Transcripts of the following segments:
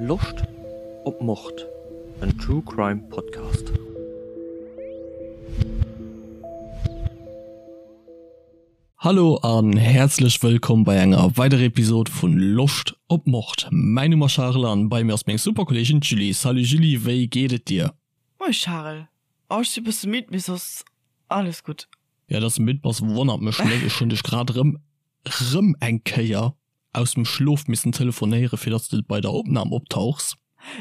Loscht op Mord? En True Crime Podcast. Hallo an häerzlech wëllkomm bei enger weiderer Episode vun Loscht op Mord. Mäin Numm ass Charel an bei mir ass meng super Kolleegin d'Julie. Salut Julie, wéi geet et dir? Moie Charel, oh ech si bësse midd, mee soss alles gutt. Jo, dass de midd bass wonnert mech net, ech hunn dech grad rëm rëm eng Kéier aus dem Schlof missen telefonéieren, fir dass de bei der Opnam optauchs.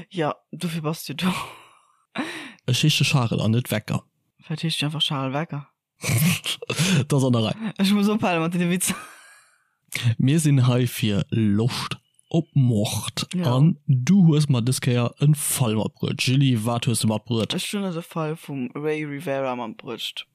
Jo, dofir bass du do. Ech heesche Charel an net Wecker. Vläit heescht du einfach Charel Wecker. Dat ass an der Rei. Ech muss ophale mat deene Witzer. Mir sinn hei fir Loscht op Mord. Ja. An du hues mer dës Kéier en Fall matbruet. Julie, wat hues du matbruet? Ech hunn der de Fall vum Ray Rivera matbruecht.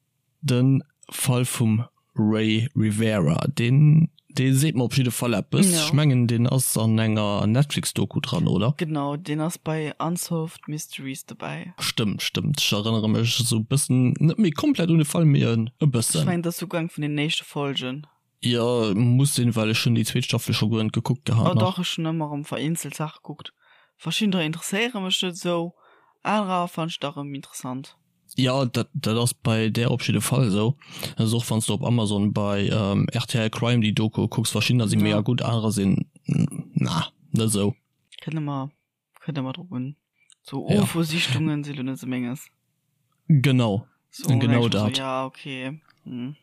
De Fall vum Ray Rivera, deen, dee seet mer op jidde Fall eppes. Ech mengen, deen ass an enger Netflix-Doku dran, oder? Genau, deen ass bei Unsolved Mysteries dobäi. Stëmmt, stëmmt. Ech erënnere mech esou e bëssen, net méi komplett un de Fall, mee e bëssen. Ech mengen, dat ass souguer eng vun den éischte Folgen. Jo, muss sinn, well ech hunn déi zweet Staffel scho guer net gekuckt gehat nach. Oh dach, ech hunn ëmmer erëm vereenzelt Saache gekuckt. Verschiddener interesséiere mech net esou, anerer fannen ech da erëm interessant. Jo, dat dat ass bei där op jidde Fall esou. Dat ass och wann s de op Amazon bei rtl Crime déi Doku kucks, verschiddener si mega gutt, anerer sinn na net esou. Kënnt ëmmer Kënnt ëmmer drop un. So ja. Ufo-Sichtungen si lo net sou menges. Genau. So, genau dat. So, ja, okay. Hm.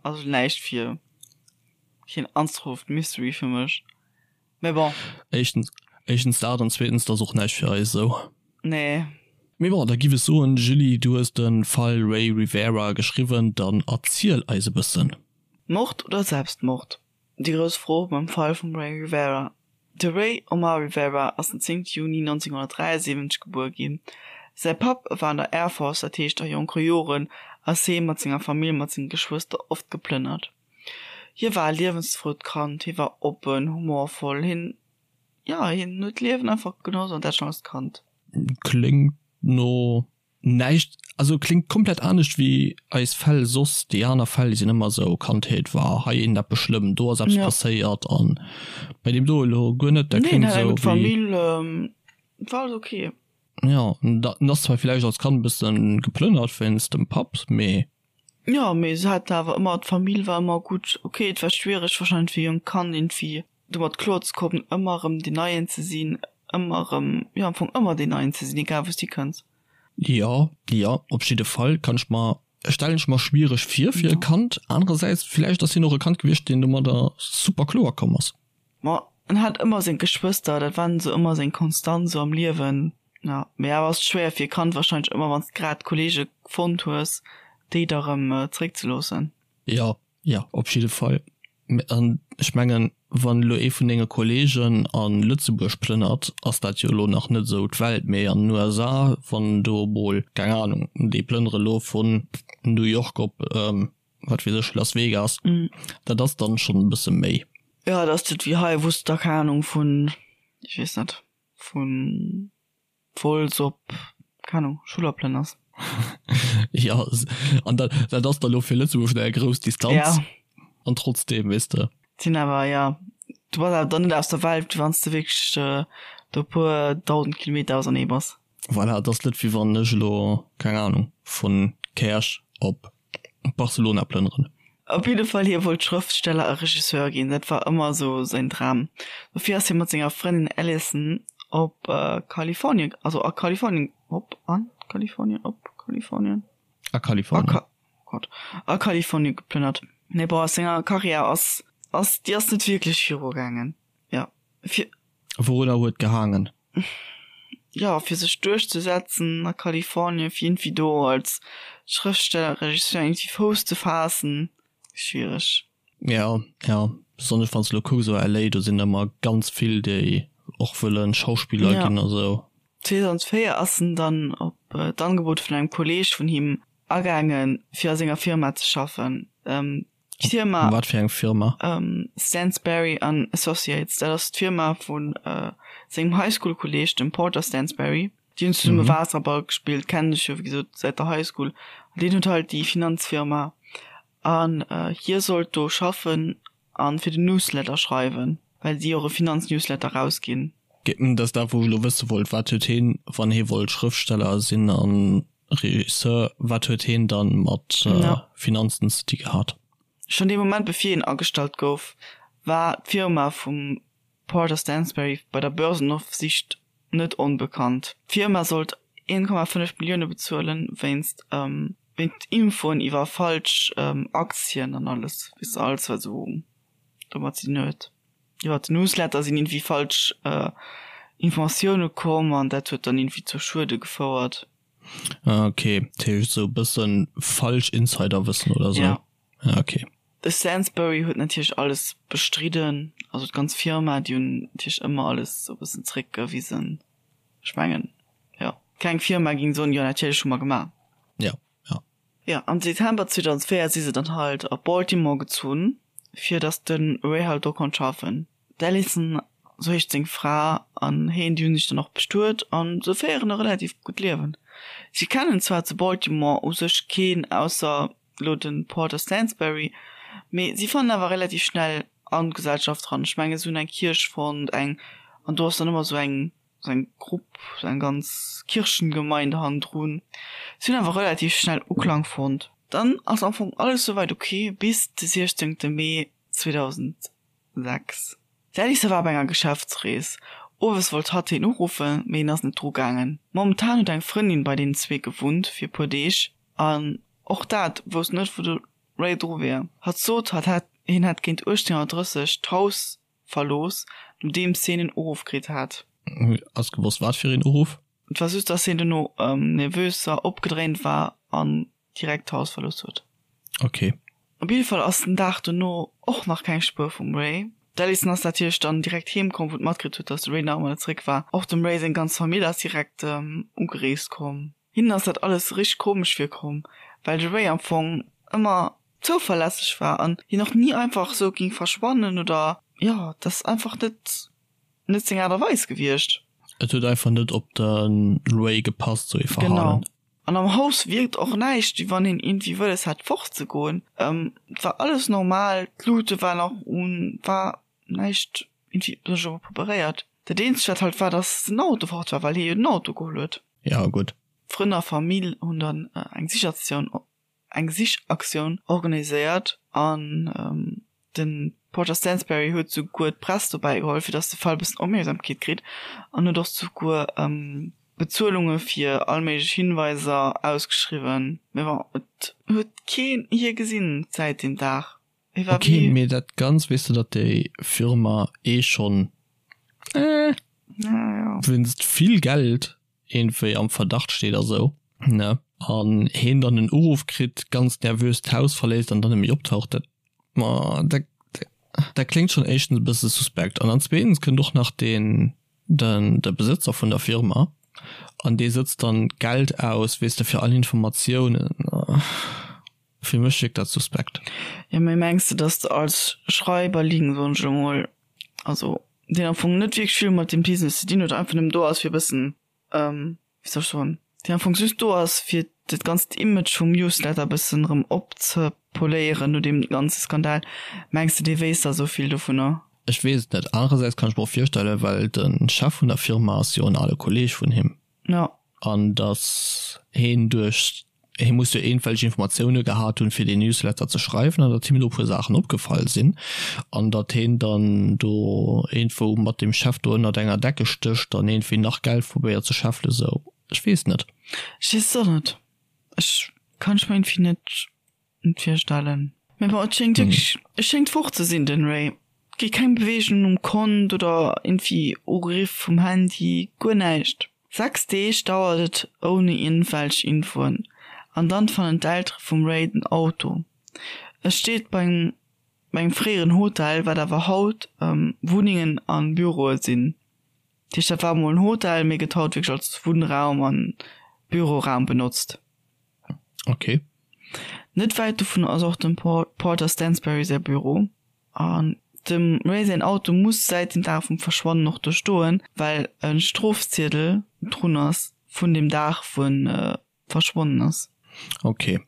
Also näischt fir keen Unsolved Mystery fir mech. Mee bon. Éischtens, éischtens dat an zweetens, dat ass och näischt fir eis esou. Nee. Mee bon, da giff ech soen, Julie, du hues de Fall Ray Rivera geschriwwen, dann erziel eis e bëssen. Mord oder Selbstmord? Déi grouss Fro beim Fall vum Ray Rivera. De Ray Omar Rivera ass den 10 Juni 1973 gebuer ginn. Säi Papp war an der Air Force, dat heescht a jonke Joren ass hee mat senger Famill mat senge Geschwëster oft geplënnert. Hie war e liewensfrout Kand, hie war oppen, humorvoll, hien, jo, hien huet d'Liewen einfach genoss an dat schonn als Kand. Kléngt no Näischt, also kléngt komplett anescht wéi eis Fäll soss. Déi aner Fäll, déi sinn ëmmer esou, Kandheet war hei eent eppes schlëmm, do ass eppes passéiert an bei deem do elo guer net. Dat kléngt esou wéi. Famill war alles ok. Jo, en ass zwar villäicht als Kand e bëssen geplënnert wéinst dem Papp, mee. Jo, mee se hat awer ëmmer, d'Famill war ëmmer gutt. Ok, et war schwiereg wahrscheinlech fir e jonkt Kand iergendwéi domat kloer ze kommen, ëmmer erëm deen Neien ze sinn, ëmmer erëm, jo am Fong ëmmer deen Neien ze sinn, egal wou s du hikënns. Jo, jo, op jidde Fall kann ech mer, stellen ech mer schwiereg vir fir e Kand. Anerersäits, villäicht ass hien och e Kand gewiescht, deen domadder super kloer komm ass. Ma en hat ëmmer seng Geschwëster, dat waren esou ëmmer seng Konstant esou am Liewen. Jo, mee awer ass et schwéier fir e Kand wahrscheinlech ëmmer, wann s de grad Kollege fonnt hues, déi da erëm zeréckzeloossen. Jo, jo, op jidde Fall. An ech mengen, wann elo ee vun denge Kollegen a Lëtzebuerg plënnert, ass dat jo elo nach net esou d'Welt, mee an den USA, wann do emol, keng Anung, déi plënnere elo vun New York op, wat weess ech, Las Vegas, dat ass dann schonn e bësse méi. Jo, dat ass net wéi hei, wou s de da, keng Anung, vun, ech weess net, vun Wolz op, keng Ahnung, Schuller plënners. Jo, an dat, dat ass da lo fir Lëtzebuerg schon eng grouss Distanz. Ja. An trotzdem, weess de. Sinn awer, ja, du bass awer dann net aus der Welt, wéi wann s de wierklech do e puer 1.000 Kilometer ausernee bass. Voilà, et ass net wéi wann ech elo, keng Ahnung, vun Käerch op Barcelona plënneren. Op jidde Fall, hie wollt Schrëftsteller a Regisseur ginn, dat war ëmmer esou säin Dram. Dofir ass hie mat senger Frëndin Alison op Kalifornien, also a Kalifornien, op, an Kalifornien, op Kalifornien? A Kalifornien. A oh Gott, a Kalifornien geplënnert. Mee bon, a senger Karriär ass, ass, déi ass net wierklech virugaangen, jo. Fir. Wourunner huet gehaangen? jo, fir sech duerchzesetzen a Kalifornien, fir iergendwéi do als Schrëftsteller, Regisseur iergendwéi Fouss ze faassen, schwiereg. Jo, jo, besonnesch wann s de elo kucks, esou LA, do sinn ëmmer ganz vill, déi och wëllen Schauspiller ginn a sou. 2004 ass en dann op d'Angebot vun engem Kolleeg vun him agaangen, fir a senger Firma ze schaffen. D'Firma. Wat fir eng Firma? Stansberry an Associates, dat ass d'Firma vu sengem High-School-Kolleeg, dem Porter Stansberry. Déi hunn zesumme Waasserball gespillt, kennen sech jo wéi gesot säit der High School. An deen huet halt déi Finanzfirma an hie sollt do schaffen a fir den Newsletter schreiwen, well si och e Finanz-Newsletter rausginn. Dat ass dat wou ech elo wësse wollt, wat huet heen, wann hee wollt Schrëftsteller sinn an Regisseur, wat huet heen dann mat Finanzen ze di gehat? Schonn dee Moment bevir hien agestallt gouf, war d'Firma vum Porter Stansberry bei der Börsenofsicht net onbekannt. D'Firma sollt 1,5 Millioune bezuelen wéinst wéinst Infoen iwwer falsch Aktien an alles, weess de, alles wat esou domat ze dinn huet. Iwwer den Newsletter sinn iergendwéi falsch Informatioune komm an dat huet dann iergendwéi zu Schuede gefouert. Ah ok, dat heescht esou e bëssen falsch Insiderwëssen oder esou? Ja. Ah ok. De Stansbury huet natierlech alles bestridden, also d'ganz Firma, déi hunn natierlech ëmmer alles esou e bëssen zeréckgewisen. Ech mengen, jo, keng Firma géing soen, jo natierlech hu mer gemaach. Ja, ja. Jo, am Dezember 2004 si se dann halt op Baltimore gezunn, fir datt de Ray halt do konnt schaffen. D'Alison, sou heescht seng Fra, an heen, déi hunn sech dann och bestuet an se féieren e relativ gutt Liewen. Si kennen zwar zu Baltimore u sech keen ausser elo de Porter Stansberry, mee si fannen awer relativ schnell an d'Gesellschaft eran. Ech mengen, se hunn eng Kierch fonnt, eng, an do ass dann ëmmer sou eng, sou eng Grupp, sou eng ganz Kirchengemeinde hannendrun. Si hunn awer relativ schnell Uklang fonnt. Dann ass am Fong alles souwäit ok bis de 16 Mee 2006. D'Alisa war op enger Geschäftsrees. Owes wollt hatt hien uruffen, mee hien ass net dru gaangen. Momentan huet eng Frëndin bei deenen zwee gewunnt fir e puer Deeg an och dat wousst net wou de Ray dru wier. Hatt sot hatt hätt hien hätt géint 18:30 d'Haus verlooss nodeems hien en Uruff kritt hat. Ass gewosst wat fir een Uruff? Et war just dass hien dono nervös a opgedréint war an direkt d'Haus verlooss huet. Ok. Op jidde Fall ass den Dag dono och nach keng Spuer vum Ray. D'Alison ass natierlech dann direkt heem komm, wou d'matkritt huet, dass de Ray nach ëmmer net zeréck war. Och dem Ray seng ganz Famill ass direkt ugereest komm. Hinnen ass dat alles richteg komesch virkomm, well de Ray am Fong ëmmer zouverlässeg war an hien och ni einfach sou ging verschwannen oder jo, dat ass einfach net net seng Aart a Weis gewiescht. Et huet einfach net op de Ray gepasst, sou ee Verhalen. Genau. An am Haus wierkt och näischt, wéi wann hien iergendwéi wëlles hätt fortzegoen. Et war alles normal, d'Lute war nach un, war näischt iergendwéi besonnesch iwwerpreparéiert. Dat eenzegt wat halt war, datt den Auto fort war, well hie jo den Auto geholl huet. Ja, gutt. Frënn a Famill hunn dann eng Sichaktioun eng Sichaktioun organiséiert an de Porter Stansberry huet souguer d'Press dobäi geholl, fir datt de Fall e bëssen Opmierksamkeet kritt an huet och souguer Bezuelunge fir all méiglech Hinweiser ausgeschriwwen. Mee bon, et huet keen hie gesinn säit deem Dag. Hie war wéi. Ok, mee dat Ganzt, weess de, datt déi Firma eh schonn, eh, wéinst vill Geld iergendwéi am Verdacht steet a sou, ne? An heen dann en Uruff kritt, ganz nervös d'Haus verléisst an dann net méi optaucht, dat, ma dat, dat kléngt schonn éischtens e bësse suspekt. An dann zweetens kënnt och nach deen, den, de Besëtzer vun der Firma an dee sëtzt dann Geld aus, weess de, fir all Informatiounen. Fir mech wierkt dat suspekt. Jo, mee mengs de, dass de als Schreiberling, soen ech elo mol, also deen am Fong net wierklech vill mat deem Business ze dinn huet, einfach nëmmen do ass fir e bëssen, wéi soll ech soen, deen am Fong just do ass fir dat ganzt Image vum Newsletter e bëssen erëm opzepoléieren no deem ganze Skandal, mengs de dee wéisst da sou vill dovunner? Ech weess et net. Anerersäits kann ech mer och virstellen, well de Chef vun der Firma ass jo en ale Kolleeg vun him. Ja. An datt heen duerch, hee muss jo iergendwelch Informatioune gehat hunn, fir deen Newsletter ze schreiwen, an datt him do e puer Saachen opgefall sinn, an datt heen dann do iergendwou mat deem Chef do ënnert enger Decke stécht an iergendwéi nach Geld probéiert ze scheffelen, sou. Ech weess net. Ech weess et och net. Ech kann ech mer iergendwéi net Net virstellen. Mee bon, et schéngt wierklech, e schéngt fort ze sinn, den Ray. Et gi keng Beweegungen um Kont oder iergendwéi Uriff vum Handy, guer näischt. 6 Deeg dauert et ouni iergendwelch Infoen an dann fannen d'Eltere vum Ray den Auto. E steet bei engem bei engem fréieren Hotel, wat awer haut Wunnengen a Büroe sinn. Dat heescht, dat war emol en Hotel, mee gëtt haut wierklech als Wunnraum an Büroraum benotzt. Ok. Net wäit dovun ass och dem Porter Stansberry säi Büro. An dem Ray säin Auto muss säit dem Dag vum Verschwannen och do stoen, well e Strofziedel drun ass vun dem Dag wou en verschwonnen ass. Ok.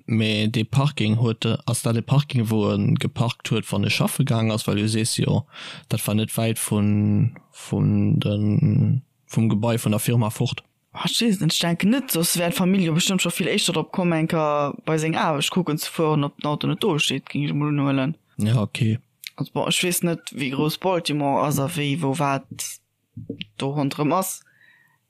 Mee dee Parking huet e, ass dat e Parking wou e geparkt huet wann e schaffe gaang ass? Well du sees jo dat war net wäit vun vun de vum Gebai vun der Firma fort. Ah ech weess et net, ech denken net, soss wär d'Famill jo bestëmmt scho vill éischter drop komm eng Kéier bei seng Aarbecht kucken ze fueren ob den Auto net do steet, géing ech emol unhuelen. Ja ok. Also bon ech weess net wéi grouss Baltimore ass a wéi wou wat do ronderëm ass,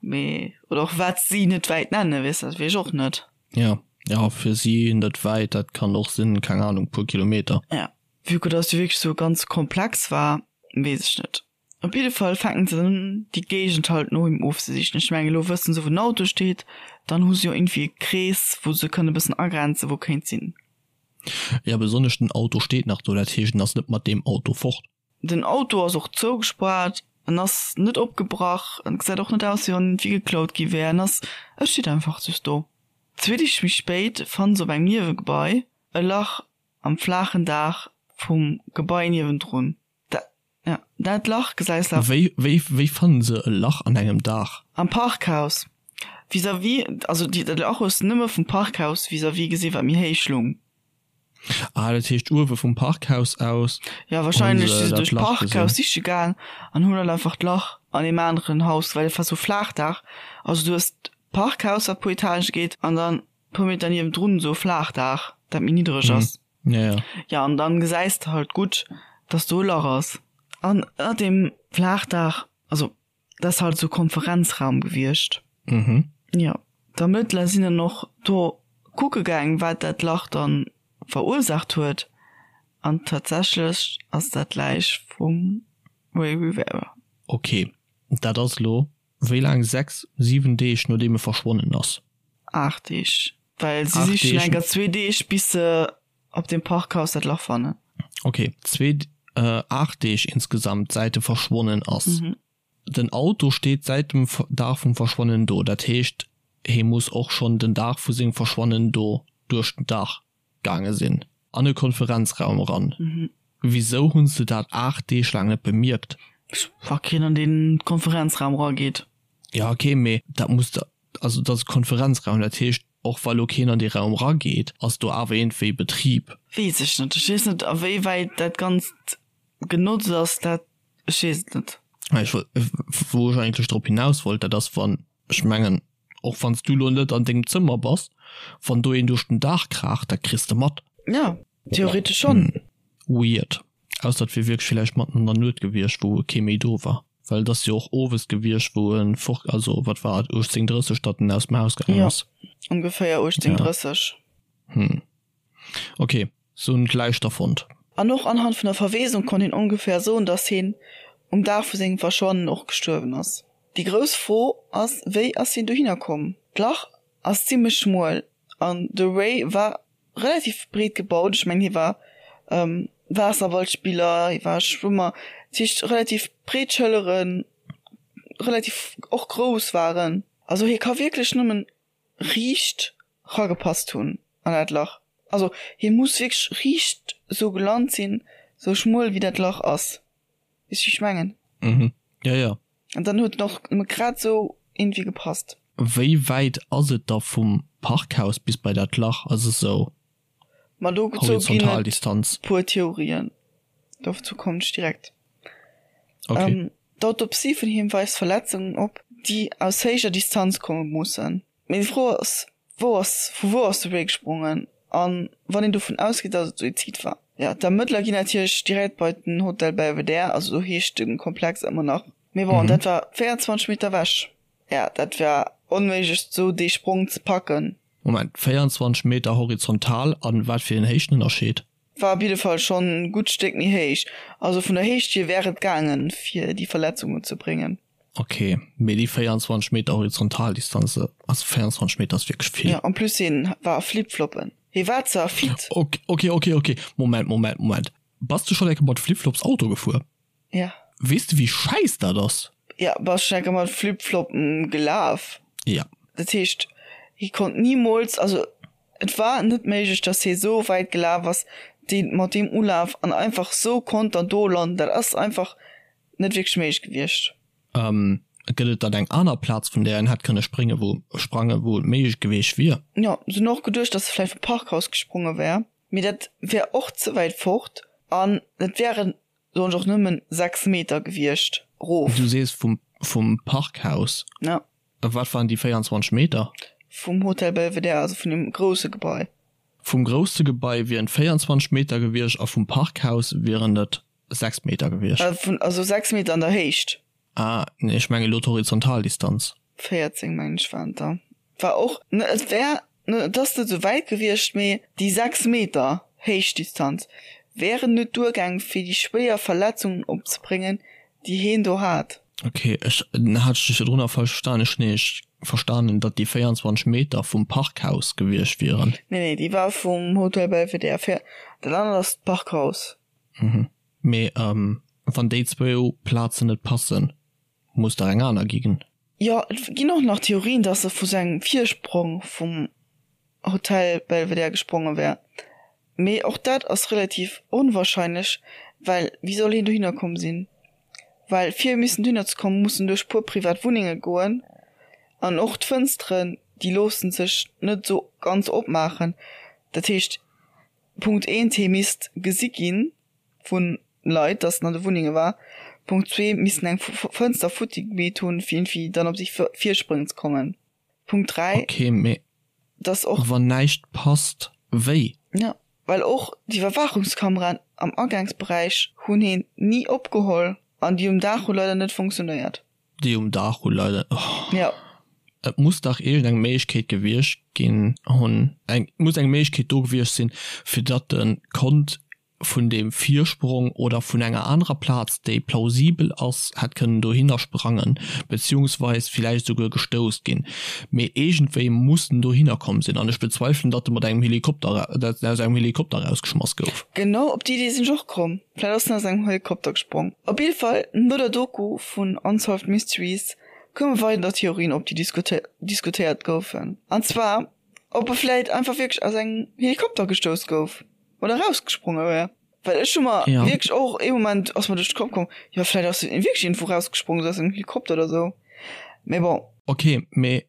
mee oder och wat si net wäit nennen, weess dat weess ech och net. Ja, ja fir si net wäit, dat kann och sinn, keng Ahnung, puer Kilometer. Ja, vue que dass jo wierklech sou ganz komplex war, weess ech net. Op jidde Fall fänken se un déi Géigend halt no him ofzesichen. Ech mengen elo wëssen se wou den Auto steet, dann hu se jo iergendwéi e Krees wou se kënne bëssen agrenzen wou kéint sinn. Ja, besonnesch den Auto steet nach do, dat heescht en ass net mat deem Auto fort. Den Auto ass och zougespaart, en ass net opgebrach, en gesäit och net aus wéi wann iergendwéi geklaut gi wär, en ass, e steet einfach just do. Zwee Deeg méi spéit fanne se op engem Niewegebai e Lach am flaachen Daach vum Gebai niewendrun. Dat, ja, dat Lach gesäis de. Wéi, wéi, wéi fanne se e Lach an engem Daach? Am Parkhaus vis-à-vis, also déi, dat Lach hues de nëmme vum Parkhaus vis-à-vis gesinn, wat méi héich lung. Ah, dat heescht uewe vum Parkhaus aus Ja, wahrscheinlech si se duerch d'Parkhaus siche gaang an hunn dann einfach d'Lach an deem aneren Haus, well et war sou Flaachdaach. Also du hues d'Parkhaus, wat puer Etagë geet, an dann puer Meter niewendrun esou e Flaachdaach, dat méi niddereg ass. Ja, ja. Ja, an dann gesäis de halt gutt, dass do e Lach ass. An ënnert deem Flaachdaach, also Dat ass halt esou Konferenzraum gewiescht. Mhm. Jo. D'Ermëttler sinn dann och do kucke gaang, wat dat Lach dann verursaacht huet. An tatsächlech ass dat d'Läich vum Ray Rivera. Ok, dat ass elo wéi laang? 6, 7 Deeg nodeem e verschwonnen ass? 8 Deeg, well si sichen enker zwee Deeg bis se op dem Parkhaus dat Lach fannen. Ok, zwee, 8 Deeg insgesamt säit e verschwonnen ass. Den Auto steet säit dem Dag vum Verschwannen do, dat heescht hee muss och schonn den Dag vu sengem Verschwannen do duerch den Dag gaange sinn, an e Konferenzraum eran. Wisou hunn se dat 8 Deeg laang net bemierkt? Wa keen an dee Konferenzraum erageet. Jo ok, mee dat muss der, also dat ass e Konferenzraum, dat heescht och wa lo keen an dee Raum erageet, ass do awer iergendwéi Betrib. Weess ech net. Ech weess net a wéi wäit dat Ganzt genotzt ass, dat Ech weess et net. Ech wollt, wou ech eigentlech drop hinaus wollt, dat ass wann, ech mengen, och wann s du elo net an dengem Zëmmer bass, wann do een duerch den Daach kraacht, dat kriss de mat. Jo, theoretesch schonn. Weird. Ausser et wier wierklech villäicht matten an der Nuet gewiescht, wou kee méi do war. Well et ass jo och owes gewiescht, wou e fort, also wat war et, 18:30, datt en aus dem Haus gaangen Jo, ass. ongeféier 18:30. Hm. Ok. Se hunn d'Läich da fonnt. An och anhand vun der Verweesung konnt een ongeféier soen, dass hien um Dag vu sengem Verschwannen och gestuerwen ass. Déi grouss Fro ass, wéi ass hien dohinner komm? D'Lach ass zimmlech schmuel an de Ray war relativ breet gebaut. Ech mengen hie war Waasserballspiller, hie war Schwëmmer, dat heescht relativ breet Schëlleren, relativ och grouss waren. Also hie ka wierklech nëmmen riicht ragepasst hunn an dat Lach. Also hie muss wierklech riicht sou gelant sinn, sou schmuel wéi dat Lach ass. Weess wéi ech mengen? Mhm, jo jo. An dann huet en och nëmme grad sou iergendwéi gepasst. Wéi wäit ass et da vum Parkhaus bis bei dat Lach? Ass et sou Ma dozou ginn et puer Theorien. Dozou kommen ech direkt. Okay. D'Autopsie vun him weist Verletzungen op, déi aus héijer Distanz komme mussen. Mee déi Fro ass, Wou ass, vu wou ass de Ray gesprongen? A wann een dovun ausgeet, datt et Suizid war? Jo, d'Ermëttler ginn natierlech direkt bei den Hotel Belvedere, also sou heescht de Komplex ëmmer nach. Mee bon, dat war 24 Meter ewech. Jo, dat war onméiglech, sou dee Sprong ze packen. Moment, 24 Meter horizontal an wat fir een Héichtenënnerscheed? War op jidde Fall schonn e gutt Stéck méi héich. Also vun der Héicht hier wär et gaangen, fir déi Verletzungen ze bréngen. Ok, mee déi 24 Meter Horizontaldistanz, also 24 Meter ass wierklech vill. Jo, en plus hien war a Flipfloppen. Hie war zwar fit. Ok, ok, ok, ok, Moment, Moment, Moment. Bass du schonn eng Kéier mat Flipflops Auto gefuer? Ja. Weess de wéi schäiss dat ass? Ja, bass schon enker mat Flipfloppen gelaf? Ja. Dat heescht, hie konnt nimools, also et war net méiglech, dass hie sou wäit gelaf ass, dee mat deem Ulaf an einfach sou konnt dann do landen. Dat ass einfach net wierklech méiglech gewiescht. Ähm. Gëtt et dann eng aner Plaz vun där en hätt kënne sprénge wou sprange wou et méiglech geweecht wier? Jo, se hunn och geduecht, dass e vläicht vum Parkhaus gespronge wär, mee dat wär och ze wäit fort an et wären soen ech och nëmmen 6 Meter gewiescht rof. Du sees vum vum Parkhaus? Ja. A wat waren déi 24 Meter? Vum Hotel Belvedere, also vun deem grousse Gebai. Vum grousse Gebai wieren 24 Meter gewiescht a vum Parkhaus wieren et 6 Meter gewiescht. Vun, also 6 Meter an der Héicht. Ah, nee, ech mengen elo d'Horizontaldistanz. 14 mengen ech waren et der. War och, et wär, et ass net esou wäit gewiescht, mee déi 6 Meter Héichtdistanz wären net duergaang fir déi schwéier Verletzungen opzebréngen, déi heen do hat. Ok, ech hat dech virdrun nach falsch verstanen. Ech hunn nämlech verstanen, datt déi 24 Meter vum Parkhaus gewiescht wieren. Nee, nee, déi war vum Hotel Belvedere. Fir dat anert ass d'Parkhaus. Mhm. Mee wann déi zwou Plazen net passen, muss dach eng aner ginn. Jo, et ginn och nach Theorien, dass e vu sengem Virsprong vum Hotel Belvedere gespronge wär. Mee och dat ass relativ onwahrscheinlech, well wéi soll hien dohinner komm sinn? Well fir missen dohinner ze kommen, muss en duerch puer privat Wunnenge goen an och d'Fënsteren, déi loosse sech net esou ganz opmaachen. Dat heescht, Punkt eent, hie misst gesi gi vu Leit, datt en an de Wunnenge war. Punkt zwee, missten eng Fënster futti gemeet hunn, fir iergendwéi dann op déi Virspréng ze kommen. Punkt 3, Ok, mee dass och. Wann näischt passt, wéi? Jo, well och d'Iwwerwaachungskameraen am Agaangsberäich hunn heen ni opgeholl an déi um Daach hu leider net funktionéiert. Déi um Daach hu leider, oh. Jo. Et muss dach iergendeng Méiglechkeet gewiescht ginn hunn, eng, muss eng Méiglechkeet do gewiescht sinn, fir datt e konnt vun deem Virsprong oder vun enger anerer Plaz, déi plausibel ass, hätt kënnen dohinner sprangen, beziehungsweis villäicht esouguer gestouss ginn. Mee iergendwéi muss en dohinner komm sinn. An ech bezweifelen, datt e mat engem Helikopter, datt en aus engem Helikopter erausgeschmass gouf. Genau op déi Idee sinn ech och komm. Vläicht ass en aus engem Helikopter gesprong. Op jidde Fall, no der Doku vun Unsolved Mysteries koume weider Theorien op, déi diskutéiert goufen. An zwar, ob e vläicht einfach wierklech aus engem Helikopter gestouss gouf. Oder rausgespronge wär. Well ech hu mer Ja. wierklech och ee Moment ass mer duerch de Kapp komm, jo vläit ass en wierklech iergendwou rausgesprongen, sou aus engem Helikopter oder sou. Mee bon. Ok, mee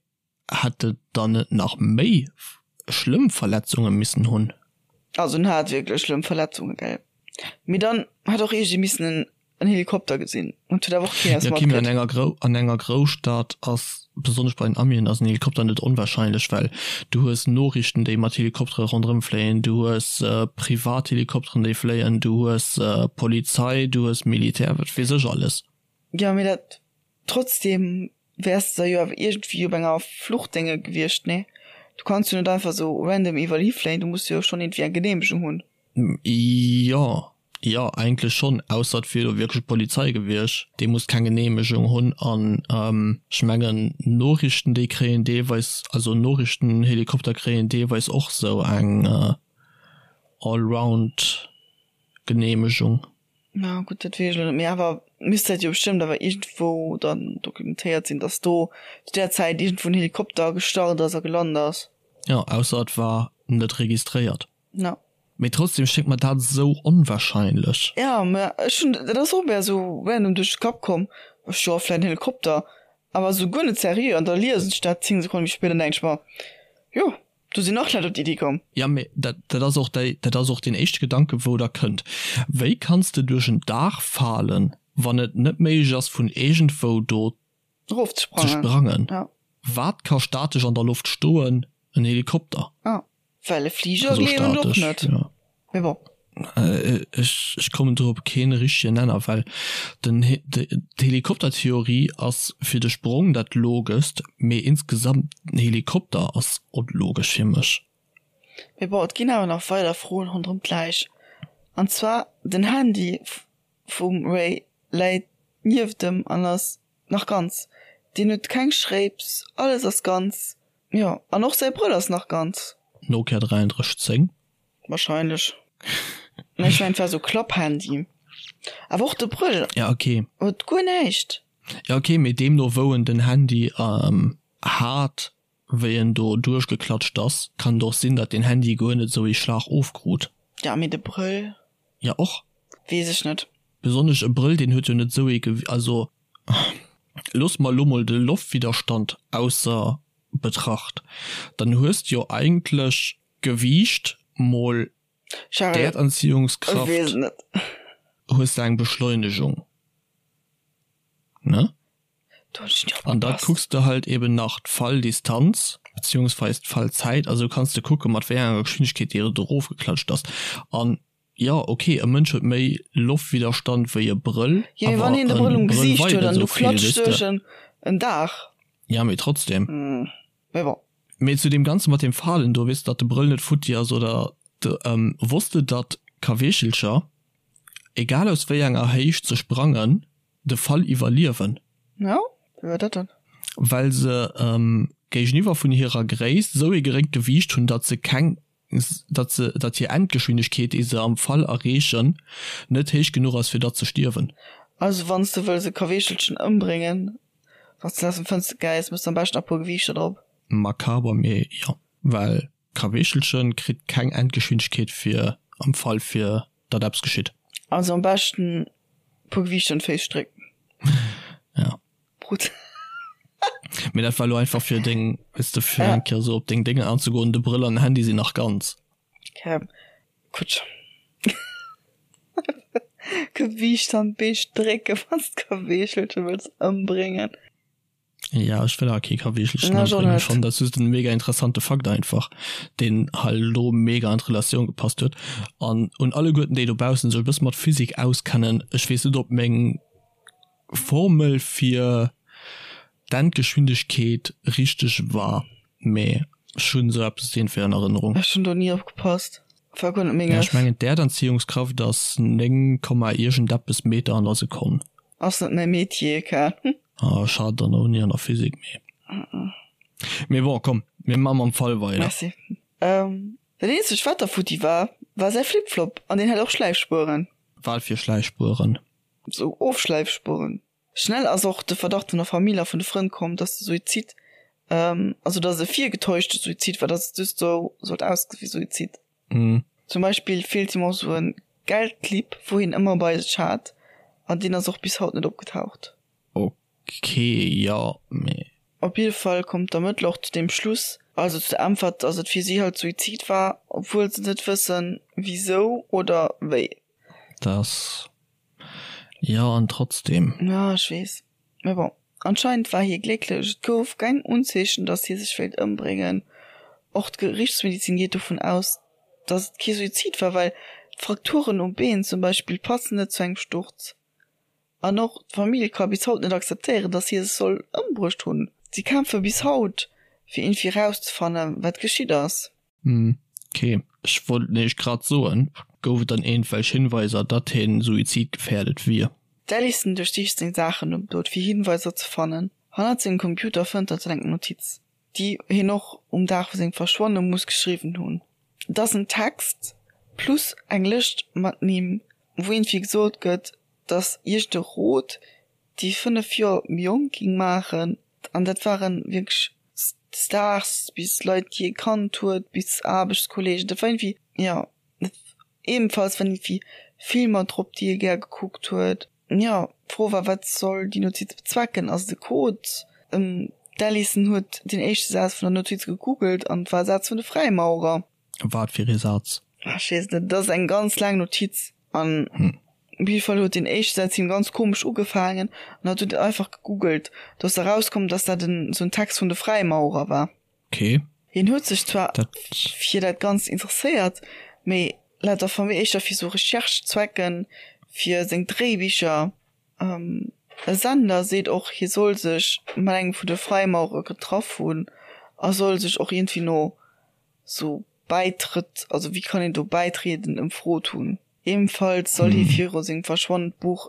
hätt e dann net nach méi schlëmm Verletzunge missen hunn? Also en hat wierklech schlëmm Verletzunge, gell. Mee dann hätt och iergendee missen en en Helikopter gesinn und huet awer och keen eppes Ja, okay, mee an matkritt. enger Grou an enger Grousstad ass, besonnesch bei den Amien, ass en Helikopter net onwahrscheinlech, well du hues Noriichten, déi mat Helikoptere ronderëm fléien, du hues Privathelikopteren, déi fléien, du hues Polizei, du hues Militär, wat weess ech alles. Jo, mee dat trotzdem wäers de da jo awer iergendwéi op enger Fluchtdénge gewiescht, nee? Du kanns jo net einfach sou random iwwerall hifléien, du muss jo schonn iergendwéi eng Geneemegung hunn. Jo, jo eigentlech schonn, ausser et wier elo wierklech d'Polizei gewiescht, déi muss keng Geneemegung hunn an ech mengen Noriichten déi kréien deelweis, also Noriichtenhelikopter kréien deelweis och sou eng Allround Geneemegung. Na gutt, dat weess ech elo net, mee awer misst dat jo bestëmmt awer iergendwou dann dokumentéiert sinn, datt do zu där Zäit iergendwou en Helikopter gestart ass a gelant ass. Jo, ausser et war net registréiert. No. Mee trotzdem schéngt mer dat esou onwahrscheinlech. Ja, mä ech hunn, dat ass och mär esou random duerch de Kapp komm, ech jo, vläit en Helikopter, awer esou guer net seriö, an da liesen ech dat 10 Sekonne méi spéit an denken ech mer, jo, do sinn nach Leit op déi Iddi komm. Ja, mee dat, dat ass och déi, dat ass och deen éischte Gedanke wou der kënnt. Wéi kanns de duerch en Daach falen, wann et net méiglech ass vun iergendwou do Erof ze ze sprangen? sprangen? Ja. Wat ka statesch an der Loft stoen? En Helikopter. Ah. Well e Fliger gleewen ech och net. Mee bon. Ech ech kommen do op keen richtegen Nenner, well den d'Helikoptertheorie ass fir de Sprong dat logest, mee insgesamt den Helikopter ass onlogesch fir mech. Mee bon, et ginn awer nach weider Froen ronderëm d'Läich. An zwar den Handy vum Ray läit nieft em an ass nach ganz. Deen huet keng Schréips, alles ass ganz. Jo, an och säi Brëll ass nach ganz. Nokia 3310? Wahrscheinlech. Mä ech mengen et war sou Klapphandy. Awer och de Brëll Ja ok. huet guer näischt. Ja ok, mee deemno wou en den Handy hat, wéi en do duerchgeklatscht ass, kann et och sinn, datt den Handy guer net esou ee Schlag ofkrut. Ja, mee de Brëll. Ja och. Weess ech net. Besonnesch e Brëll, deen huet jo net esou ee Gew-, also. Loosse mer elo mol de Loftwidderstand ausser Betracht, dann hues de jo eigentlech Gewiicht mol D'Erdanziehungskraft hues de eng Beschleunegung, ne? An da kucks de halt eben nach d'Falldistanz beziehungsweis d'Fallzäit, also kanns de kucke mat wéi enger Geschwindegkeet déi do erofgeklatscht ass. An jo, ok, e Mënsch huet méi Loftwidderstand wéi e Brëll, awer e Brëll weit net esou vill, weess de. Ja, mee trotzdem. Mee zu deem Ganze mat deem Falen do, weess de, datt de Brëll net futti ass oder de, wosst de datt Kaweechelcher, egal aus wéi enger Héicht se sprangen, de Fall iwwerliewen? Jo, wéi war dat dann? Well se géigeniwwer vun hirer Gréisst esou ee geréngt Gewiicht hunn, datt se keng, datt se, datt hir Endgeschwindegkeet, déi se am Fall erreechen, net héich genuch ass fir datt ze stierwen. Also wann s de wëlls e Kaweechelchen ëmbréngen, wann s de aus dem Fënster geis, mëss de am beschten nach e puer Gewiichter drop. Makaber, mee jo, well Kaweechelchen kritt keng Endgeschwindegkeet fir am Fall fir datt eppes geschitt. Also am beschten puer Gewiichter un d'Féiss strécken. Ja. Brutal. Mee dat war lo einfach fir deng, weess de, fir eng Kéier sou op deng Déngen anzegoen. De Brëll an den Handy sinn nach ganz. Okay, gutt. Gewiicht an d'Bee strécken, wann s d'Kaweechelche wëlls ëmbréngen. Ja, ech wëll awer kee Kaweechelchen ëmbréngen. Ech fannen dat just en mega interessante Fakt einfach, deen hei elo mega an d'Relatioun gepasst huet. An un alleguerten, déi dobaussen sech e bësse mat Physik auskennen, ech weess net, ob meng Formel fir d'Endgeschwindegkeet richteg war, mee ech hunn esou eppes iergendwéi an Erënnerung. Ech hunn do ni opgepasst, war guer net menges. Ech mengen d'Äerdanziehungskraft ass 9 Komma iergendeppes Meter an der Sekonn. Ass net mäi Metier, gell. Ah, ech hat dann och ni an der Physik, mee. Mee bon, komm, mir maache mam Fall weider. Merci. Dat eenzegt wat da futti war, war säi Flip-Flop an deen hat och Schläifspueren. Wat fir Schläifspueren? Sou Ofschläifspueren. Schnell ass och de Verdacht vun der Famill a vun de Frënn komm, dass de Suizid, also dass et e virgetäuschte Suizid war, dass et just sou sollt ausgesi wéi Suizid. Zum Beispill feelt him och sou e Geldclip, wou hien ëmmer bei sech hat, an deen ass och bis haut net opgetaucht. Ok, jo, mee. Op jidde Fall kommt d'Ermëttler och zu deem Schluss, also zu der Äntwert, dass et fir si halt Suizid war, obwuel se net wëssen, wisou oder wéi. Dass, jo, an trotzdem. Jo, ech weess. Mee bon, anscheinend war hie glécklech. Et gouf keng Unzeechen, datt hie sech wéilt ëmbréngen. Och d'Gerichtsmedizin geet dovun aus, datt et kee Suizid war, well d'Frakturen um Been zum Beispill passen net zu engem Sturz. An och d'Famill ka bis haut net akzeptéieren, datt hie sech soll ëmbruecht hunn. Si kämpfe bis haut, fir iergendwéi erauszefannen, wat geschitt ass. Hm, ok. Ech wollt nämlech grad soen, gouf et dann iergendwelch Hinweiser, datt hien suizidgefährdet wier? D'Alison duerchsicht seng Saachen nom Doud fir Hinweiser ze fannen. Hannert sengem Computer fënnt hatt eng Notiz, déi hien och um Dag vu sengem Verschwanne muss geschriwwen hunn. Et ass en Text plus eng Lëscht mat Nimm, wou iergendwéi gesot gëtt, datt iergend e Rot déi 5 Joer méi jonk ging maachen an dat waren wierklech Stars bis Leit déi ee kannt huet bis Aarbechtskollegen, dat war iergendwéi jo ebenfalls waren iergendwéi Filmer drop déi ee gär gekuckt huet. Jo d'Fro war wat soll déi Notiz bezwecken, ass et e Code? D'Alison huet den éischte Saz vun der Notiz gegoogelt an et war e Saz vun de Fräimaurer. Wat fir ee Saz? Ech weess net, et ass eng ganz laang Notiz an op jidde Fall huet deen éischte Saz him ganz komesch ugefaangen an hatt huet et einfach gegoogelt. Do ass erauskomm, dass dat en sou en Text vun de Fräimaurer war. Okay. Hien huet sech zwar fir dat Ganzt interesséiert, mee laut der Famille éischter fir sou Recherche-Zwecken, fir seng Dréibicher. E Sender seet och, hie soll sech mat engem vun de Fräimaurer getraff hunn a soll sech och iergendwéi no sou Bäitrëtt, also wéi kann een do bäitrieden, ëmfrot hunn. Ebenfalls soll hie viru sengem Verschwannen d'Buch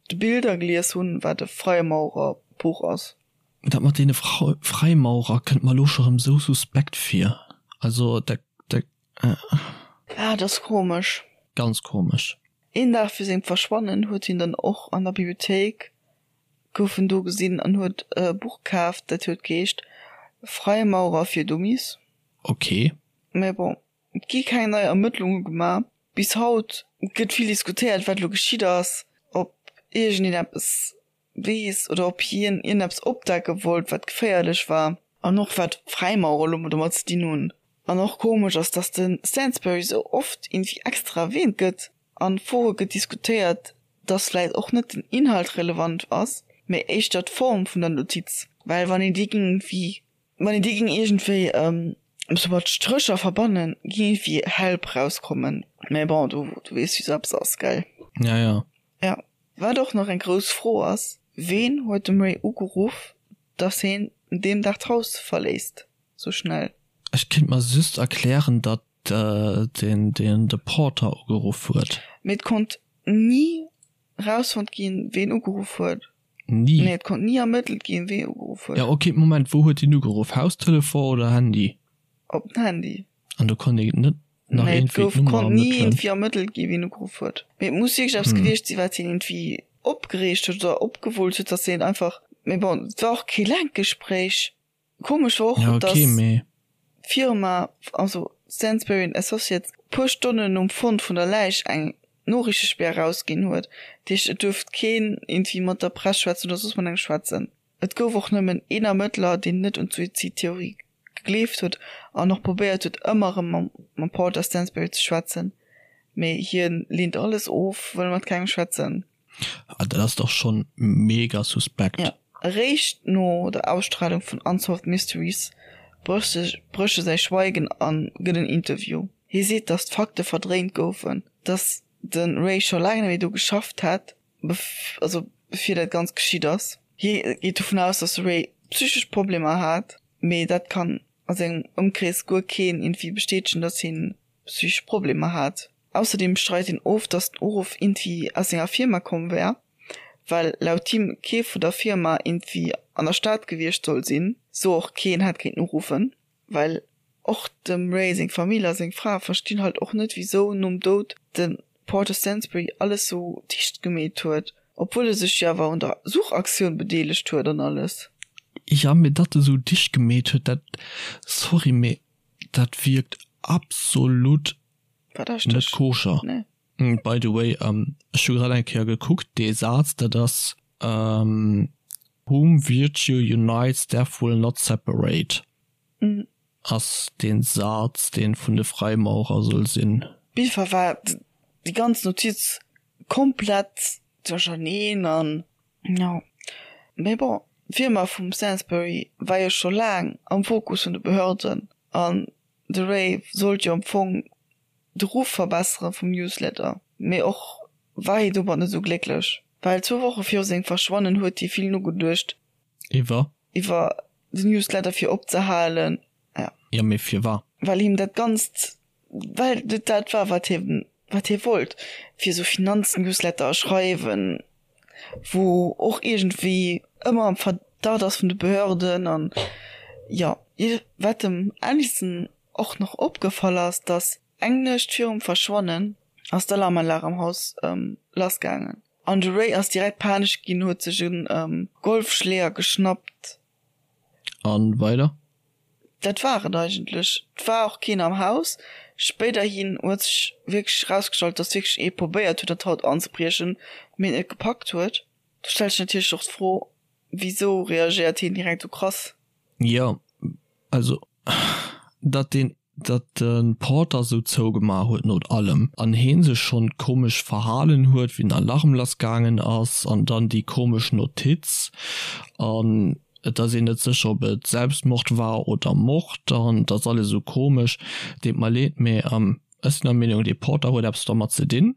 De Bilder gelies hunn, wat e Freimaurerbuch ass. Dat mat deene Freimaurer kënnt mer elo scho rëm sou suspekt vir. Also dat, dat. Ah, dat ass komesch. Ganz komesch. Een Dag fir sengem Verschwannen huet hien dann och an der Bibliothéik gouf en do gesinn an huet e Buch kaaft, dat huet geheescht Freimaurer fir Dummies. Ok. Mä bon, et gi keng nei Ermëttlunge gemaach. Bis haut gëtt vill diskutéiert, wat elo geschitt ass, ob iergendeen eppes. weess oder ob hien iergendeppes opdecke wollt, wat geféierlech war. An och wat d'Fräimaurer elo domat ze dinn hunn. An och komesch ass, dass de Stansbury sou oft iergendwéi extra erwähnt gëtt an Fore gëtt diskutéiert, dass vläit och net den Inhalt relevant ass, mee éischter d'Form vun der Notiz. Well wann een déi géing iergendwéi, wann een déi géing iergendwéi sou mat Strécher verbannen, géing iergendwéi Help rauskommen. Mee bon, du weess wéi sou eppes ass, gell? Ja, ja. Ja. Wat och nach eng grouss Fro ass, Ween huet dem Ray ugeruff, dass heen deem Dag d'Haus verléisst sou schnell? Ech kinnt mer just erklären, datt deen de Porter ugeruff huet. Mee et konnt ni rausfonnt ginn, ween ugeruff huet. Ni? Nee, et konnt ni ermëttelt ginn, wee ugeruff huet. Ja ok, Moment, wou huet deen ugeruff? Haustelefon oder Handy? Op den Handy. An do konnt een net nach Nee, et iergendwéi gouf, d'Nummer konnt ni ermëttelen? iergendwéi ermëttelt ginn, wien ugeruff huet. Mee et muss wierklech eppes gewiescht sinn, wat hien iergendwéi opgereegt huet oder opgewullt huet, dass hien einfach, mee bon, et war och kee laangt Gespréich. Komesch war och, Ja, okay, dass mee. d'Firma, also Stansberry and Associates, puer Stonnen nom Fond vun der Läich eng Noriichtespär erausginn huet. Dat heescht, et duerft keen iergendwéi mat der Press schwätzen oder soss mat engem schwätzen. Et gouf och nëmmen een Ermëttler, deen net un d'Suizidtheorie gegleeft huet an och probéiert huet, ëmmer erëm mam Porter Stansberry ze schwätzen, mee hien leent alles of, wëll mat kengem schwätzen. Ah, dat ass dach schonn mega suspekt. Jo. Eréischt no der Ausstralung vun Unsolved Mysteries brécht e säi Schweigen a gëtt en Interview. Hie seet, datt d'Fakte verdréint goufen, datt de Ray scho laang net méi do geschafft hätt, also bevir dat Ganzt geschitt ass. Hie geet dovun aus, datt de Ray psychesch Problemer hat, mee dat kann a sengem Ëmkrees guer keen iergendwéi bestätegen, datt hien psychesch Problemer hat. Ausserdeem streit hien of, datt den Uruff iergendwéi aus senger Firma komm wär, well laut him kee vun der Firma iergendwéi an der Stad gewiescht soll sinn, sou och keen hätt kéinten uruffen. Well och dem Ray seng Famill a seng Fra verstinn halt och net wisou nom Doud de Porter Stansbury alles sou dicht gemeet huet, obwuel e sech jo awer un der Suchaktioun bedeelegt huet an alles. Jo mee datt e sou dicht gemeet huet dat, sorry mee dat wierkt absolut net koscher. Nee. By the way, ech hu grad eng Kéier gekuckt, dee Saz dat ass Whom virtue unites, death will not separate ass dee Saz dee vun de Fräimaurer soll sinn. Op jidde Fall war déi ganz Notiz komplett duercherneen an jo. Mee bon, d'Firma vum Sainsbury war jo scho laang am Fokus vun de Behörden an de Ray sollt jo am Fong de Ruff verbessere vum Newsletter, mee och war hie domat net esou glécklech, well zwou Woche viru sengem Verschwannen huet hie vill nogeduecht. Iwwer? Iwwer den Newsletter fir opzehalen, ja. Jo, mee firwat? Well him dat Ganzt, well et dat war, wat hie, wat hie wollt, fir esou Finanznewsletter schreiwen, wou och iergendwéi ëmmer am Verdacht ass vun de Behörden an, jo. Wat dem Allison och nach opgefall ass, dass eng Nuecht virum Verschwannen ass d'Alarmanlag am Haus lass gaangen an de Ray ass direkt panesch ginn, huet sech e Golfschléier geschnappt. An weider? Dat war et eigentlech. Et war och keen am Haus. Spéiderhin huet sech wierklech erausgestallt, dass wierklech ee probéiert huet an d'Haut anzebriechen, mee et net gepackt huet. Do stellt sech natierlech och d'Fro, wisou reagéiert hien direkt esou krass? Jo, also datt deen, datt de Porter sou zougemaach huet no allem an heen sech schonn komesch verhalen huet wéi den Alarm lass gaangen ass an dann déi komesch Notiz an et ass een net sécher ob et Selbstmord war oder Mord an et ass alles sou komesch. Deet mer leed, mee ech sinn der Meenung dee Porter huet eppes dermat ze dinn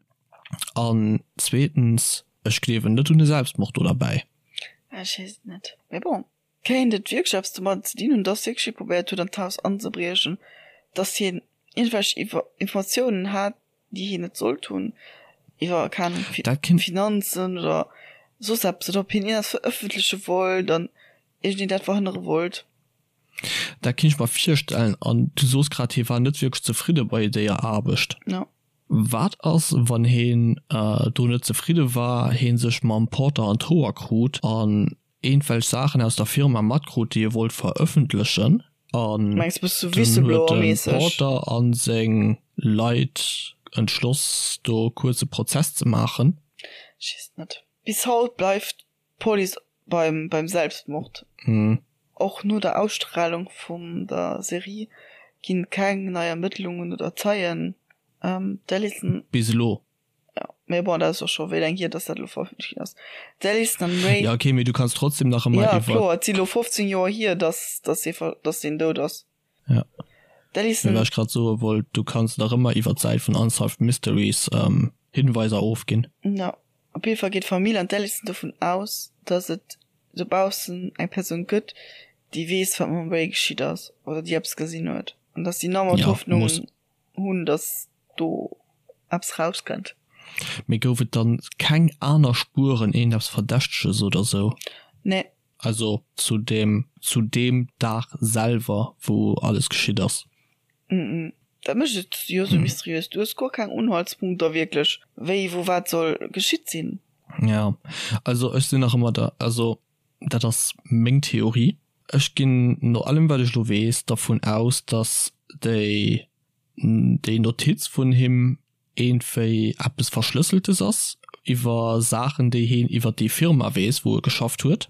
an zweetens ech gleewen net un e Selbstmord do derbäi. Ech weess et net, mee bon. Kéint et wierklech eppes domadden ze dinn hunn, dass wierklech hie probéiert huet an d'Haus anzebriechen, dass hien iergendwelch Informatiounen hat, déi hien net sollt hunn, iwwer, keng Ahnung, Finanzen oder soss eppes, oder ob hien iergendeppes verëffentleche wollt an iergendeen dat verhënnere wollt? Dat kéint ech mer virstellen. An du soos grad, hie war net wierklech zefridde bei déier Aarbecht. Jo. Wat ass, wann hien do net zefridde war, hie sech mam Porter an d'Hoer krut an eenwelch Saachen aus der Firma matkrut déi e wollt verëffentlechen an Mengs bist du dunn huet de Whistleblower-mäßeg? Porter an seng Leit entschloss do kuerz e Prozess ze maachen. Ech weess et net. Bis haut bleift. D'Police beim beim Selbstmord. Och no der Ausstralung vum der Serie ginn keng nei Ermëttlungen oder Zeien. D'Alison. Bis elo. Jo, mee bon, dat ass och scho wéi laang hier, dass dat elo verëffentlecht ginn ass. D'Alison an Ray. Jo, okay, mee du kanns trotzdem nach ëmmer iwwer. Jo, kloer, et si elo 15 Joer hier, dass dass hie dass deen dout ass. Ja. D'Alison. Mee wat ech grad soe wollt, du kanns nach ëmmer iwwer d'Säit vun Unsolved Mysteries Hinweiser ofginn. Jo, op jidde Fall geet d'Famill an d'Alison dovun aus, dass et dobaussen eng Persoun gëtt, déi weess, wat mam Ray geschitt ass oder déi eppes gesinn huet an dass si nach ëmmer d'Hoffnung hunn, dass do eppes rauskënnt. Mee gouf et dann keng aner Spueren, iergendeppes Verdächteges oder sou? Nee. Also zu deem, zu deem Dag selwer, wou alles geschitt ass? Mm. Dat mécht et jo sou mysteriös. Du hues guer keng Unhaltspunkter wierklech, wéi, wou, wat soll geschitt sinn. Ja, also ech sinn nach ëmmer der, also dat ass meng Theorie, ech ginn no allem wat ech elo weess dervun aus, datt déi, déi Notiz vun him iergendwéi eppes Verschlësseltes ass iwwer Saachen, déi heen iwwer déi Firma weess, wou e geschafft huet.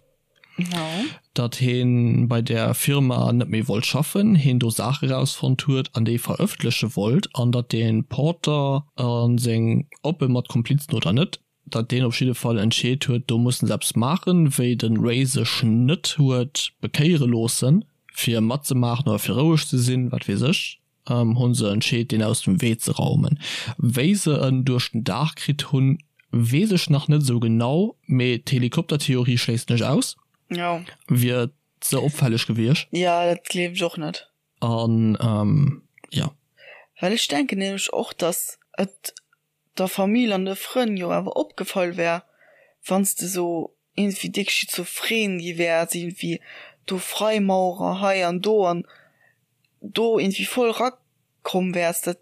Datt heen bei där Firma net méi wollt schaffen, heen do Saache rausfonnt huet an déi verëffentleche wollt an datt dee Porter a seng, ob e mat Komplizen oder net, datt deen op jidde Fall entscheet huet, do mussen se eppes maachen, wéi de Ray sech net huet bekéiere loossen, fir matzemaachen oder fir roueg ze sinn, wat weess ech. Hunn se entscheet deen aus dem Wee ze raumen. Wéi se en duerch den Daach kritt hunn weess ech nach net esou genau, mee d'Helikoptertheorie schléissen ech aus. Jo. Wier ze opfälleg gewiescht. Jo, dat gleewen ech och net. An jo. Well ech denken nämlech och, dass et der Famill an de Frënn jo awer opgefall wär, wann s de sou iergendwéi déck schizophren gi wäers, iergendwéi do Freimaurer hei an do an do iergendwéi voll rakomm wäers, dat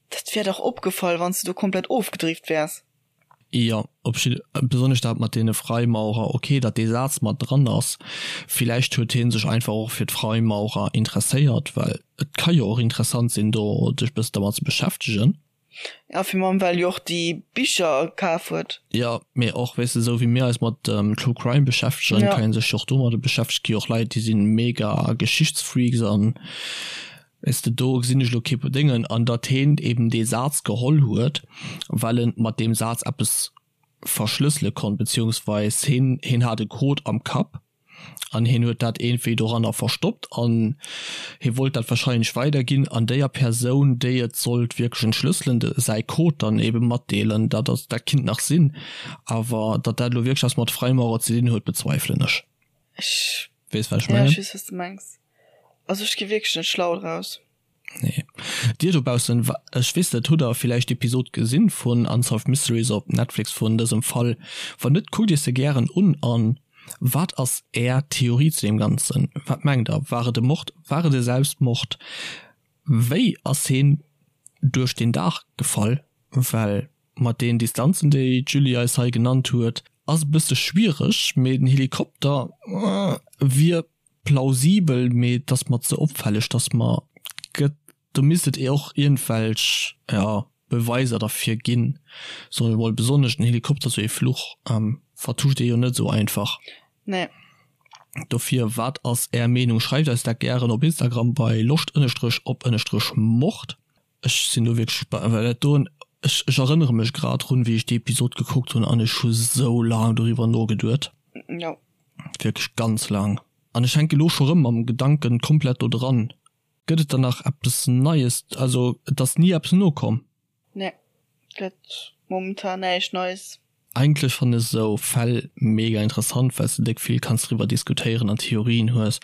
dat wär dach opgefall, wann s de do komplett ofgedrift wäers. Jo, op jidde, besonnesch dat mat deene Freimaurer, ok, datt dee Saz mat dran ass, villäicht huet hie sech einfach och fir d'Freimaurer interesséiert, well et ka jo och interessant sinn, do sech bëssen dermat ze beschäftegen. Ja, fir mam well jo och déi Bicher kaf huet. Jo, mee och, weess de, esou wéi mir eis mat True Crime beschäftegen, ja, kann een sech jo och domadder beschäftegen. Gi och Leit, déi sinn mega Geschichtsfreaks an, weess de, do gesinn ech elo kee Déngen. An datt heen eben dee Saz geholl huet, well en mat deem Saz eppes verschlëssele konnt, beziehungsweis heen, heen hat e Code am Kapp. an hien huet dat iergendwéi doranner verstoppt an hie wollt dat wahrscheinlech weiderginn an déier Persoun déi et sollt wierklech entschlësselen de säi Code dann ebe matdeelen. Dat ass dat kinnt nach sinn, awer datt dat elo wierklech eppes mat Freimaurer ze dinn huet bezweifelen ech. Ech Weess wat ech mengen? Ja ech weess wat s de mengs. Also ech gi wierklech net schlau draus. Nee. Dir dobaussen, ech weess net, hutt der villäicht d'Episod gesinn vun Unsolved Mysteries op Netflix vun dësem Fall? Wann net, kuckt iech se gären un. An wat ass är Theorie zu deem Ganzen? Wat mengt der? War et e Mord? War et e Selbstmord? Wéi ass heen duerch den Daach gefall? Well mat deen Distanzen déi d'Julie eis hei genannt huet, ass e bësse schwiereg, mee den Helikopter wier Plausibel, mee et ass mer ze opfälleg, dass mer gëtt. Do misst et och iergendwelch, jo, Beweiser derfir ginn, soen ech emol. Besonnesch den Helikopter, sou ee Fluch vertuscht ee jo net esou einfach. Nee. Dofir, wat ass Är Meenung? Schreift eis dat gären op Instagram bei loscht ënnestrech op ënnestrech mord. Ech sinn do wierklech gespaant, well dat doen, ech ech erënnere mech grad drun, wéi ech déi Episod gekuckt hunn an ech hu sou laang doriwwer nogeduet. Jo. Wierklech ganz laang. An ech hänke lo scho rëm mam Gedanken komplett do dran. Gëtt et dann nach eppes Neies? Also et ass ni eppes nokomm? Nee, gëtt momentan näischt Neies. Eigentlech fannen ech esou Fäll mega interessant, well s de déck vill kanns driwwer diskutéieren an Theorien hues.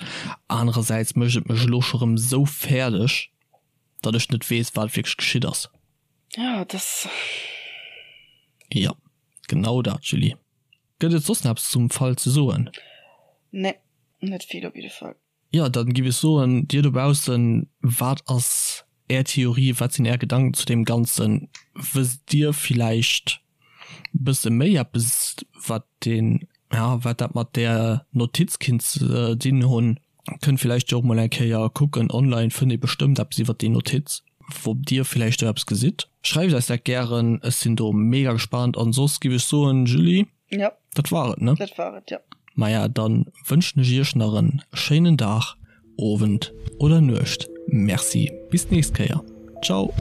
Anerersäits mécht et mech elo scho rëm esou fäerdeg, datt ech net weess, wat wierklech geschitt ass. Ja, et ass. Jo, genau dat, Julie. Gëtt et soss nach eppes zum Fall ze soen? Nee, net vill op jidde Fall. Jo, dann giff ech soen, dir dobaussen, wat ass är Theorie, wat sinn är Gedanken zu deem Ganzen? Wësst dir villäicht bësse méi eppes wat deen, ja, wat dat mat där Notiz kinnt ze dinn hunn? Kënnt villäicht jo och mol eng Kéier kucken, online fënnt ee bestëmmt eppes iwwert déi Notiz, ob dir villäicht do eppes gesitt. Schreift eis dat gären, ech sinn do mega gespaant. An soss giff ech soen, Julie. Jo. Dat war et, ne? Dat war et, jo. Maja, dann wënschen ech iech nach en schéinen Dag, Owend oder Nuecht. Merci, bis d'nächst Kéier. Ciao!